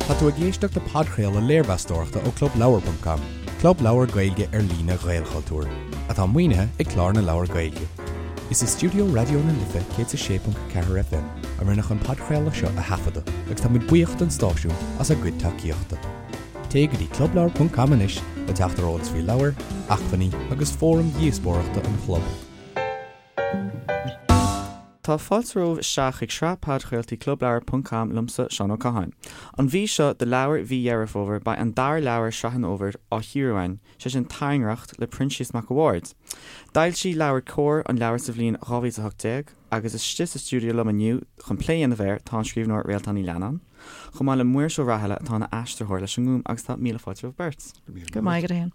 Tá tú ag éisteacht le podchraoladh léirmheastóireachta ó ClubLeabhar.com, club leabhar Gaeilge ar líne Ghaelchultúir, atá maoinithe ag Clár na Leabhar Gaeilge. Is i stiúideo Raidió na Life 106.4 FM a rinneadh an podchraoladh seo a thaifeadadh agus tá muid buíoch don stáisiún as a gcuid tacaíochta. Téigh go dtí clubleabhar.com anois le teacht ar eolas faoi leabhair, acmhainní agus fóraim dhíospóireachta an chlub. Tá fáilte romhaibh isteach chuig sraith podchraoltaí Clubleabhar ponc com liomsa, Seán Ó Catháin. An mhí seo do leabhar mhí Dheireadh Fómhair beidh an dara leabhar Sraith an Fhómhair á chíoradh againn, sé sin Tairngreacht le Proinsias Mac a' Bhaird. D'fhoilsigh LeabhairCOMHAR an leabhar sa bhliain 2018 agus istigh sa stiúideo liom inniu chun plé a dhéanamh air tá an scríbhneoir Réaltán Ní Leannáin, chomh maith le Muiris Ó Rathaille atá ina aistritheoir leis an nGúm agus tá míle fáilte romhaibh beirt. Go raibh maith agat, a Sheáin.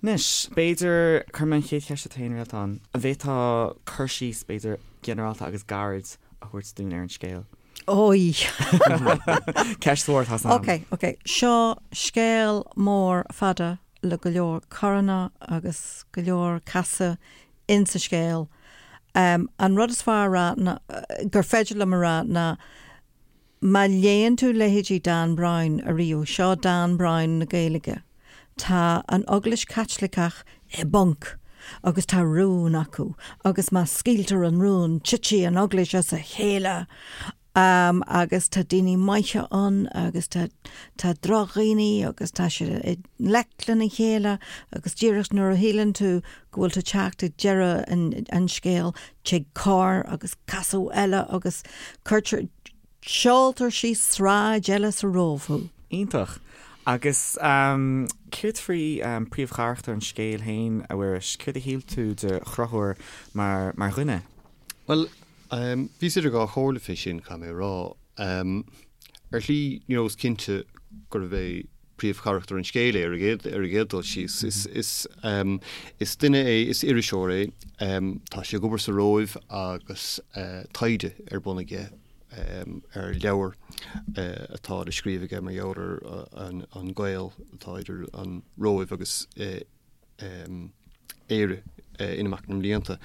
Anois, b'fhéidir, cuirfidh mé an chéad cheist ort féin, Réaltán. An bhféadfá cur síos, b'fhéidir, ginearálta agus gairid a thabhairt dúinn ar an scéal? Ói! Ceist mhór atá ann. Ok, ok. Seo scéal mór fada le go leor coranna agus go leor casadh insa scéal. An rud is fearr a rá ná, gur féidir liom a rá ná, Má léann tú leithéidí Dan Brown ariamh, seo Dan Brown na Gaeilge. Tá an Eaglais Chaitliceach i bponc agus tá rún acu agus má scaoiltear an rún titfidh an Eaglais as a chéile agus tá daoine maithe ann agus tá tá drochdhaoine agus tá siad i ngleic lena chéile agus díreach nuair a shíleann tú go bhfuil tú ag teacht ag deireadh an an scéil tig cor agus casadh eile agus cuirtear, seoltar síos sráid eile sa Róimh thú. Iontach. Agus céard faoi príomhcharachtar an scéil féin, a Mhuiris? Céard a shíl tú de Chonchúr mar mar dhuine? Bhuel, bhíos idir dhá chomhairle fé sin, caithfidh mé a rá. Ar shlí, you know, is cinnte gurbh é príomhcharachtar an scéil é ar an gcéad, ar an gcéad dul síos. Is, is, is duine é, is iriseoir é, tá sé ag obair sa Róimh agus taighde ar bun aige ar leabhar atá le scríobh aige mar gheall ar an, an gaol atá idir an Róimh agus Éire in imeacht na mblianta.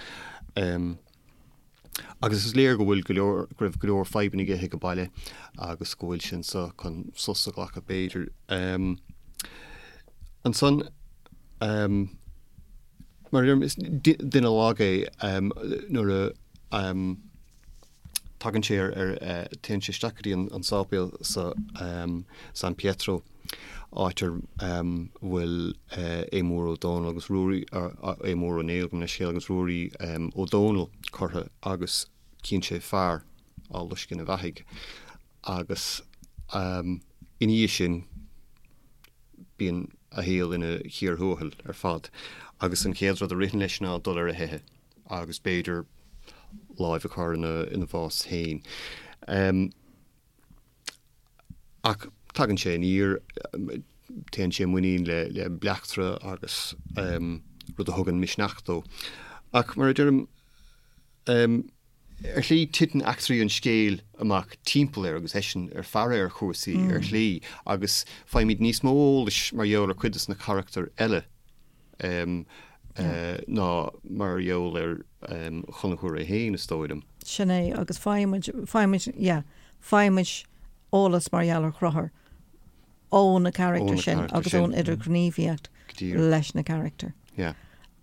Agus is léir go bhfuil go leor, go raibh go leor fadhbanna aige ag an baile agus go bhfuil sé anso chun sos a ghlacadh b'fhéidir. Ansan, mar a deirim, is duine lag é nuair a tagann sé ar, ar, téann sé isteach go dtí an sáipéal sa San Pietro. áit ar bhfuil Aodh Mór Ó Dónaill agus Ruairí, Aodh Mór Ó Néill, gabh mo leithscéal, agus Ruairí Ó Dónaill curtha agus cíonn sé fear á loisceadh ina bheathaidh agus ina dhiaidh sin bíonn a shaol ina chíor thuathail ar fad agus an chéad rud a ritheann leis ná dul ar a theitheadh agus b'fhéidir láimh a chur ina bhás féin. Ach tagann sé aniar, téann sé i muinín le bleachtaire agus rud a thugann misneach dó. Ach mar a deirim, ar shlí titeann eachtraí an scéil amach timpeall air agus eisean ar faire ar chúrsaí ar shlí agus faighimid níos mó eolais mar gheall ar chuid de na carachtair eile. ná mar gheall ar Chonchúr é féin, is dóigh liom. Sin é, agus faighimid, faighimid, yeah, faighimid eolas mar gheall ar Chonchúr ó na carachtair sin agus ón idirghníomhaíocht leis na carachtair. Yeah.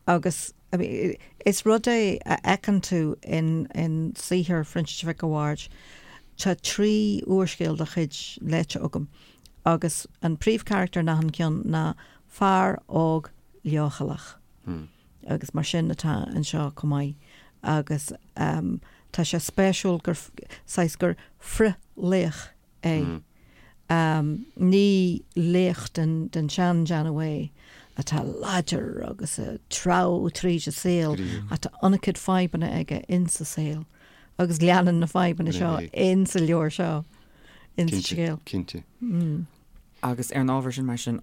Agus I mean, is rud é a fheiceann tú in, in saothar Phroinsiais Mhic a' Bhaird, tá 3 úrscéal dá chuid léite agam agus an príomhcharachtar in achan ceann ná fear óg leochaileach. Agus mar sin atá anseo chomh maith. Agus tá sé spéisiúil gur, saghas gur frith-laoch é. Ní laoch den sean-déanamh é, atá láidir agus ag treabhadh tríd an saol, ach tá an-chuid fadhbanna aige insa saol. Agus leanann na fadhbanna seo insa leabhar seo, insa scéal. Cinnte. Agus ar an ábhar sin, mar sin,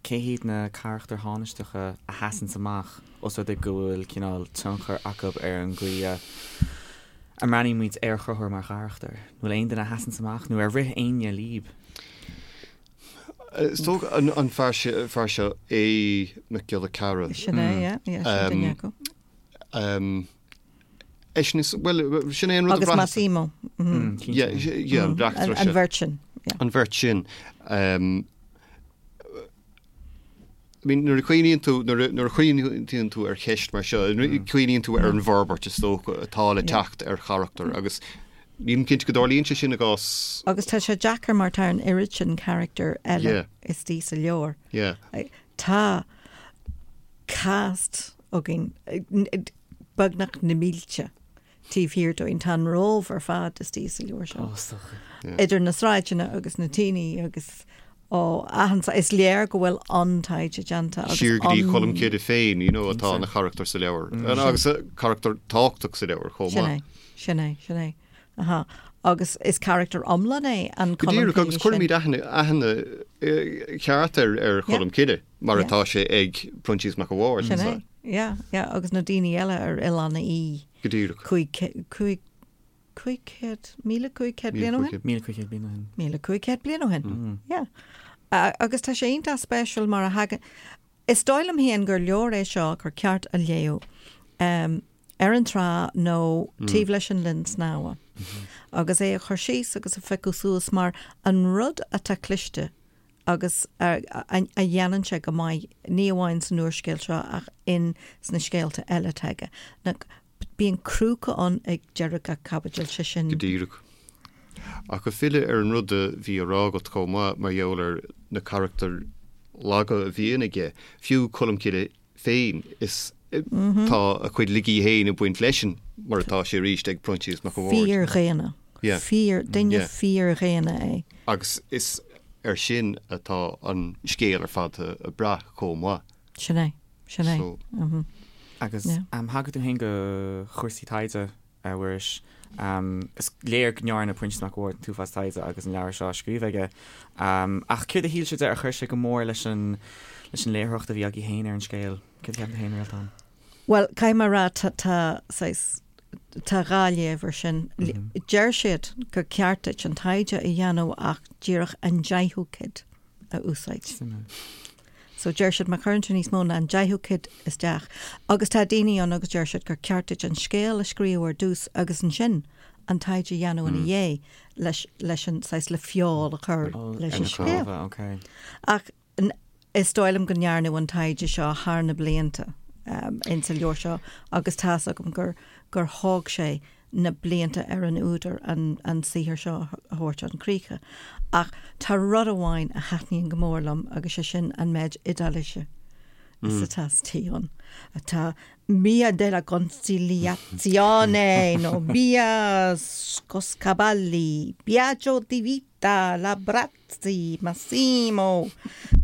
cé hiad na carachtair thánaisteacha a sheasanns amach, os rud é go bhfuil cineál tionchar acu ar an gcaoi a a mbreathnaíonn muid ar Chonchúr mar charachtar? An bhfuil aon duine a sheasanns amach, nó ar rith éinne líb? Is dócha an fear seo, Aodh Mac Giolla Chearra. Sin é, yeah, yeah, sin duine acu. Eisean is, bhuel, sin é an rud a Agus bhraitheas. Massimo. Yeah, yeah, an bleachtaire An seo. bheirt sin. Yeah. An bheirt sin. Um, I mean, nuair a chuimhníonn tú, nuair a, nuair a chuimhníonn tú ar cheist mar seo, mm. cuimhníonn tú ar an bhforbairt is dócha atá le teacht ar charachtar agus nílim cinnte go dtarlaíonn sé sin i gcás. Agus tá sé deacair mar tá an oiread sin carachtar eile Yeah. istigh sa leabhar. Yeah. Tá cast againn beagnach na mílte taobh thiar dúinn. Tá an Róimh ar fad istigh sa leabhar seo. Idir na sráideanna agus na daoine agus ó achan is léir go bhfuil an-taighde déanta agus Siar go dtí Colm Cille féin, you know, atá ina charachtar sa leabhar. Agus carachtar tábhachtach sa leabhar chomh maith. Sin é, sin é, sin é. Aha. Agus is carachtar iomlán é an Go Colm díreach, Cille agus sin. cuirimid aithne, aithne cheart ar, ar Cholm Cille mar atá sé ag Proinsias Mac a' Bhaird. Sin é. Yeah, yeah, agus na daoine eile ar Oileán Í. Go díreach. 500, 500, 1,500 bliain ó shin? 1,500 bliain ó shin. 1,500 bliain ó shin, yeah. Agus tá sé iontach spéisiúil mar a thagann, is dóigh liom féin gur leabhar é seo gur ceart a léamh ar an trá nó taobh leis an linn snámha agus é a chur síos agus a phiocadh suas mar an rud atá cliste agus a dhéanann sé go maith, ní amháin san úrscéal seo ach in sna scéalta eile atá aige, ná bíonn crúca ann ag deireadh gach caibidil, sé sin. Go díreach. Ach ag filleadh ar an rud a bhí á rá agat chomh maith mar gheall ar na carachtair laga a bhíonn aige, fiú Colm Cille féin, is tá a chuid laigí féin ag baint leisean, mar atá sé arís ag Proinsias Mac a' Bhaird. Fíordhaonna. Yeah. Fíor, duine Yeah. fíordhaonna é. Agus is air sin atá an scéal ar fad ag brath chomh maith. Sin é. Sin é. So. Agus Yeah. thagair tú féin do chúrsaí taighde, a Mhuiris. Is léir go ndearna Proinsias Mac a' Bhaird an t-uafás taighde agus an leabhar seo á scríobh aige. Ach céard a shíl sibh de ar chuir sé go mór leis an leis an léitheoireacht a bhí agaibh féin ar an scéal? Céard a cheapann tú féin, Réaltán? Bhuel, caithfidh mé a rá, tá, tá saghas, tá dhá léamh ar sin. Deir siad gur ceart duit an taighde a dhéanamh ach díreach an deichiú cuid a úsáid. Suimiúil. So deir siad má chuireann tú níos mó ná an deichiú cuid isteach, agus tá daoine ann agus deir siad gur ceart duit an scéal a scríobh ar dtús agus ansin an taighde a dhéanamh ina dhiaidh leis, leis an saghas le feoil a chur leis an scéal. Okay. Ach is dóigh liom go ndearnadh an taighde seo thar na blianta insa leabhar seo agus tá's agam gur, gur thóg sé na blianta ar an údar an an saothar seo a thabhairt chun críche. Ach tá rud amháin a thaitníonn go mór liom agus sé sin an méid Iodáilise is atá istigh ann. Tá Via della Conciliazione nó Via Scossacavalli, Biagio Di Vita, Labrat. Sea, Massimo!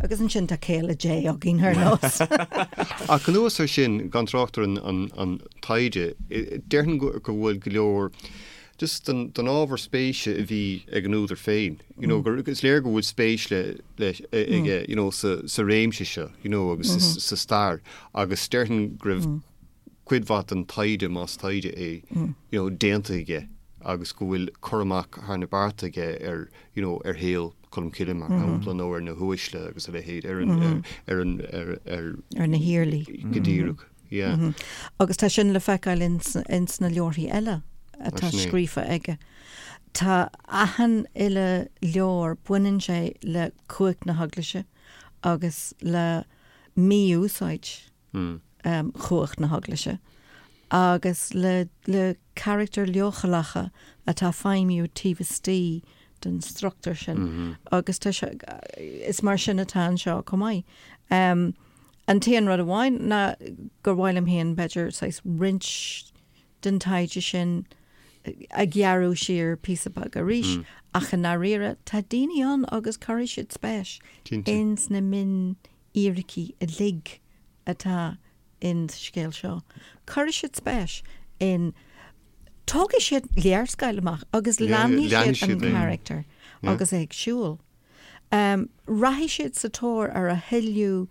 Agus ansin tá céile Dé againn ar nós. Ach anuas air sin, gan trácht ar an taighde, déarfainn go bhfuil go leor just den ábhar spéise a bhí ag an údar féin, you know, gur is léir go bhfuil spéis le aige, you know, sa réimse seo, you know, agus sa stair agus déarfainn go raibh cuid mhaith den taighde, más taighde é, you know, déanta aige agus go bhfuil cur amach thar na bearta aige ar, you know, ar shaol Cholm Cille mar shampla nó ar na huaisle agus a leithéid, ar an, ar an, ar, ar. Ar na hiarlaí. Go díreach, yeah. Agus tá sin le feiceáil ins, ins na leabharthaí eile atá scríofa aige. Tá achan uile leabhar, baineann sé le cumhacht na hEaglaise agus le mí-úsáid chumhacht na hEaglaise agus le le carachtair leochaileacha atá ag feidhmiú taobh istigh den struchtúr sin agus tá sé, is mar sin atá anseo chomh maith. An t-aon rud amháin ná gur mhaith liom féin b'fhéidir saghas roinnt den taighde sin a ghearradh siar píosa beag arís ach i ndáiríre tá daoine ann agus cuirfidh siad spéis ins na mion fhíricí uilig atá in sa scéal seo. Cuirfidh siad spéis in, tógfaidh siad léarscáil amach agus leanfaidh siad an carachtar agus é ag siúl. Rachaidh siad sa tóir ar a thuilleadh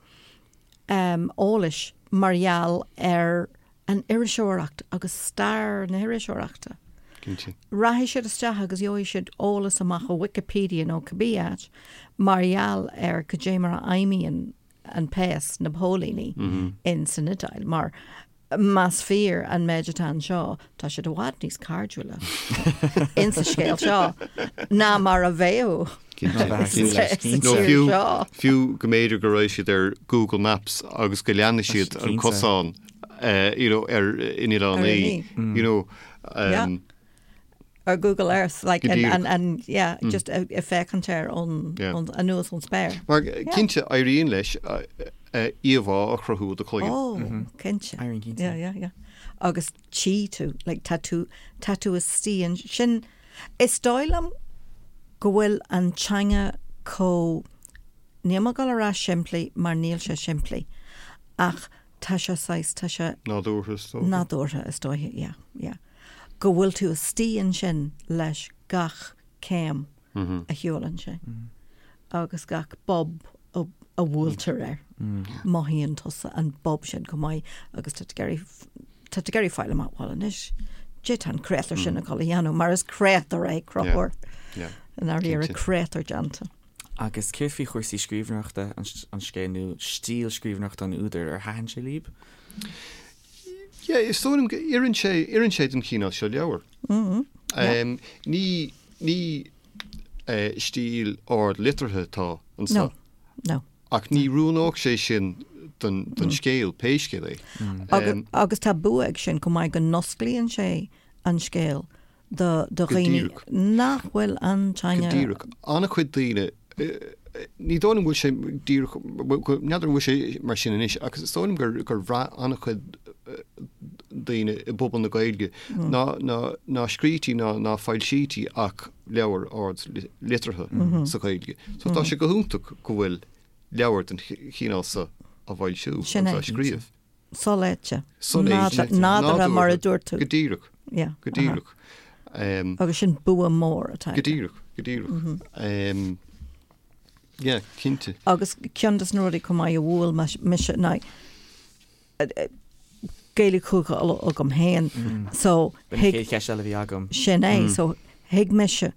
eolais mar gheall ar an iriseoireacht agus stair na hiriseoireachta. Cinnte. Rachaidh siad isteach agus gheobhaidh siad eolas amach ó Wikipedia nó cibé áit mar gheall ar cad é mar a fheidhmíonn an péas, na póilíní, in san Iodáil. Mar más fíor an méid atá anseo, tá siad i bhfad níos cairdiúla in sa scéal seo ná mar a bheadh. Cinnte. Nó fiú, fiú go mb'fhéidir go raibh siad ar Google Maps agus go leanfaidh siad an cosán you know, ar in Oileán Í, you know. Um, Ar Google Earth, like, and, and, and yeah, mm. just ag féachaint air ón, yeah. ón, anuas ón spéir. Mar cinnte éiríonn leis íomhá a chruthú i do chloigeann. Oh, mm -hmm. cinnte. Éiríonn cinnte. Yeah, yeah, yeah. Agus tchí tú, like, tá tú, tá tú istigh ansin, is dóigh liom go bhfuil an teanga chomh, níl mé ag dul a rá simplí mar níl sé simplí, ach tá sé saghas, tá sé. Nádúrtha is dócha. Nádúrtha is dóiche, yeah, yeah. Go bhfuil tú istigh ansin leis gach céim a shiúlann sé agus gach bob a bhuailtear air. Mothaíonn tusa an bob sin go maith agus tá tú ag iarraidh, tá tú ag iarraidh fáil amach, bhuel anois, caidé tá an créatúr sin ag dul a dhéanamh mar is créatúr é Conchúr. I ndáiríre, créatúr déanta. Agus céard faoi chúrsaí scríbhneoireachta an scéil nó stíl scríbhneoireachta an údair, ar thaitin sé libh? Yeah, is dóigh liom go oireann sé, oireann sé don chineál seo leabhar. Ní, ní stíl ard liteartha atá anseo. No, no. Ach ní oiriúnódh sé sin don, don scéal, pé scéal é. Agus tá bua ag sin chomh maith go n-osclaíonn sé an scéal do dhaoine nach bhfuil an teanga. Go díreach. An-chuid daoine, ní dóigh liom go bhfuil sé díreach, n'fheadar an bhfuil sé mar sin anois, ach is dóigh liom gur, gur bhraith an-chuid daoine i bpobal na Gaeilge ná, ná, ná scrítí ná, ná foilsítí ach leabhair ard liteartha sa Ghaeilge. So tá sé go hiontach go bhfuil leabhar den chineál seo á bhfoilsiú agus á scríobh. Soléite. Soléite. Nádúrtha, mar a dúirt tú. Go díreach. Yeah. Go díreach. Agus sin bua mór atá aige. Go díreach, go díreach. Yeah, cinnte. Agus ceann de na rudaí chomh maith a bhuail mise ná Gaeilge Chúige Uladh agam féin. So B'in an chéad cheist eile a bhí agam. Sin é. So thuig mise,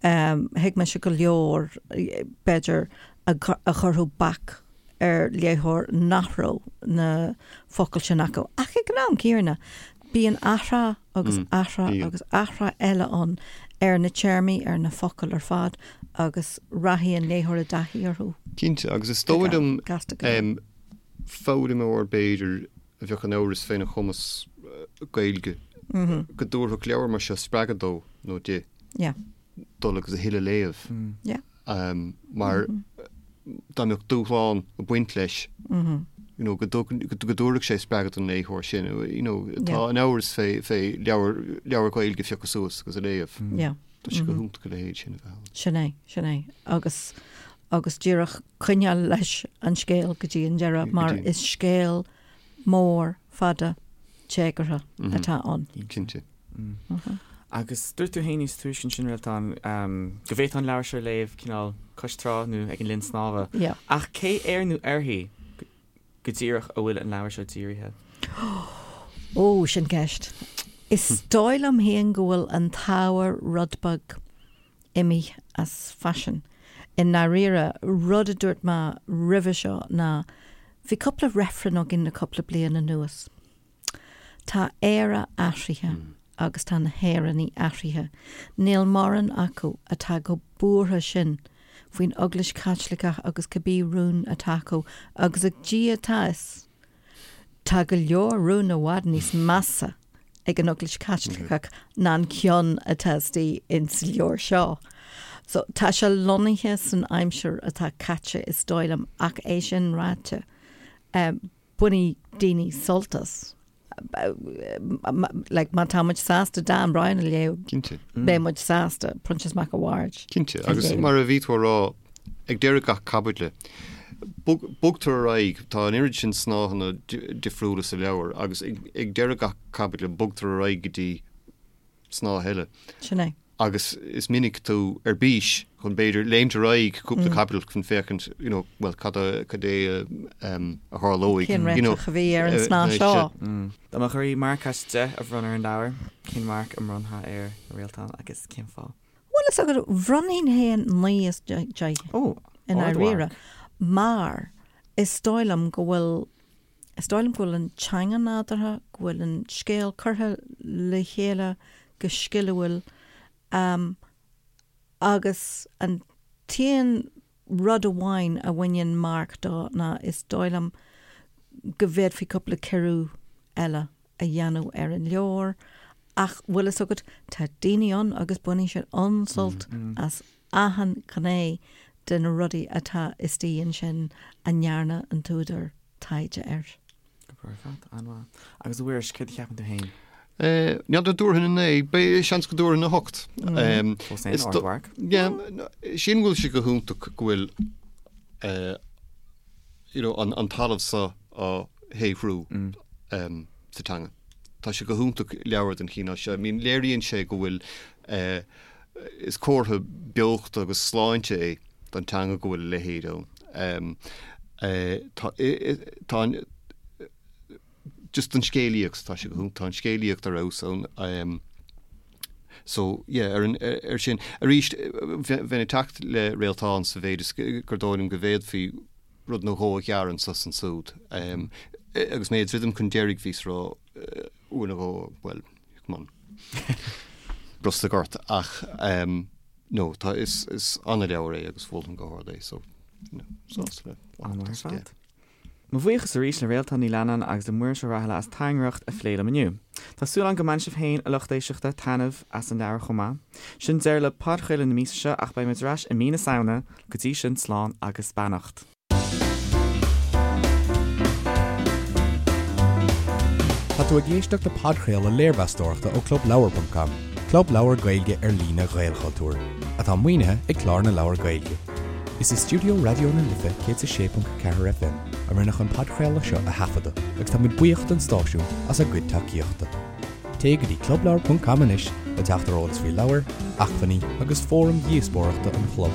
thuig mise go leor, b'fhéidir, a chuirfeadh bac ar léitheoir nach raibh na focail sin acu. Ach ag an am céanna, bíonn athrá agus athrá agus athrá eile ann ar na téarmaí, ar na focail ar fad agus rachaidh an léitheoir i dtaithí orthu. Cinnte, agus is dóigh liom foghlaimeoir b'fhéidir a bheadh in amhras féna chumas Gaeilge go dtabharfadh leabhar mar seo spreagadh dó nó di dul agus a thuilleadh a léamh. Mar dá mbeadh dúshlán ag baint leis, you know, go dtabharfadh sé spreagadh don léitheoir sin, you know, atá in amhras fé leabhar, leabhar Gaeilge a phiocadh suas agus a léamh. Tá sé go hiontach a leithéid sin a bheith ann. Sin é, sin é. Agus, agus díreach coinneáil leis an scéal go dtí an deireadh mar is scéal mór fada téagartha atá ann. Cinnte. Agus dúirt tú féin níos túisce ansin, Réaltán, go bhféadfá an leabhar seo a léamh cineál cois trá nó ag an linn snámha. Ach cé air nó uirthi go díreach a bhfuil an leabhar seo dírithe? Ó, sin ceist. Is dóigh liom féin go bhfuil an t-ábhar rud beag imithe as faisean. I ndáiríre, rud a dúirt mé roimhe seo ná bhí cúpla reifreann againn le cúpla bliain anuas. Tá Éire athraithe agus tá na hÉireannaigh athraithe. Níl mórán acu atá chomh buartha sin faoin Eaglais Chaitliceach agus cibé rún atá acu agus ag Dia atá a fhios, tá go leor rún i bhfad níos measa ag an Eaglais Chaitliceach ná an ceann atá istigh ins an leabhar seo. So tá sé lonnaithe san aimsir atá caite is dóigh liom ach é sin ráite, bainfidh daoine sult as. Like, má tá muid sásta Dan Brown a léamh, Cinnte. beidh muid sásta Proinsias Mac a' Bhaird. Cinnte, agus mar a bhí tú a rá, ag deireadh gach caibidle, bogtar ar aghaidh, tá an oiread sin snáitheanna difriúla sa leabhar, agus ag deireadh gach caibidle, bogtar ar aghaidh go dtí snáith eile. Sin é. Agus is minic tú ar bís chun b'fhéidir léimt ar aghaidh cúpla caibidil chun féachaint, you know, bhuel, cad a, cad é a tharlóidh, Cén you know. réiteach a bhí ar an snáth seo? Dá mbeadh oraibh marc as 10 a bhronnadh ar an leabhar, cén marc a mbronnfá air, a Réaltán, agus cén fáth? Bhuel, is agat, bhronnfainn féin 9 as 10 Ó, i ndáiríre, mar is dóigh liom go bhfuil Is dóigh liom go bhfuil an teanga nádúrtha, go bhfuil an scéal curtha le chéile go sciliúil agus an. T-aon rud amháin a bhaineann marc dó ná is dóigh liom go bhféadfaí cúpla ciorrú eile a dhéanamh ar an leabhar ach bhfuil fhios agat, tá daoine ann agus baineann siad an-sult as achan ghné de na rudaí atá istigh ansin a ndearna an t-údar taighde air. Go breá ar fad, an-mhaith. Agus a Mhuiris, céard a cheapann tú féin? N'fheadar an dtabharfainn 9, beidh seans go dtabharfainn 8. Fós féin, ardmharc. Yeah, sílim go bhfuil sé go hiontach go bhfuil you know, an, an talamh seo á shaothrú sa teanga. Tá sé go hiontach leabhar den chineál seo. I mean, léiríonn sé go bhfuil eh, is comhartha beochta agus sláinte é don teanga go bhfuil a leithéid ann. Eh, tá, tá an, just an scéalaíocht, tá sé go hiontach, tá an scéalaíocht ar fheabhas ann. So, yeah, ar an, ar sin. Arís, bheinn ag teacht le Réaltán sa mhéid is gur dóigh liom go bhféadfaí rud nó dhó a ghearradh anso is ansúd. Agus mé ag druidim chun deiridh bhíos ag rá uair nó dhó, bhuel, come on, brostaigh ort ach no, tá, is, is an-leabhar é agus mholfainn go hard é, so, you know, sásta le. An-mhaith ar fad. Mo bhuíochas arís le Réaltán Ní Leannáin agus le Muiris Ó Rathaille as Tairngreacht a phlé liom inniu. Tá súil agam go mbainfidh sibh féin, a lucht éisteachta, taitneamh as an leabhar chomh maith. Sin deireadh le podchraoladh na míosa seo ach beidh muid ar ais i mí na Samhna, go dtí sin slán agus beannacht. Tá tú ag éisteacht le podchraoladh léirmheastóireachta ó ClubLeabhar.com, club leabhar Gaeilge ar líne Ghaelchultúir, atá maoinithe ag Clár na Leabhar Gaeilge. Is i stiúideo Raidió na Life 106.4 FM a rinneadh an podchraoladh seo a thaifeadadh agus táimid buíoch don stáisiún as a gcuid tacaíochta. Téigh go dtí clubleabhar.com anois le teacht ar eolas faoi leabhair, acmhainní agus fóraim dhíospóireachta an chlub.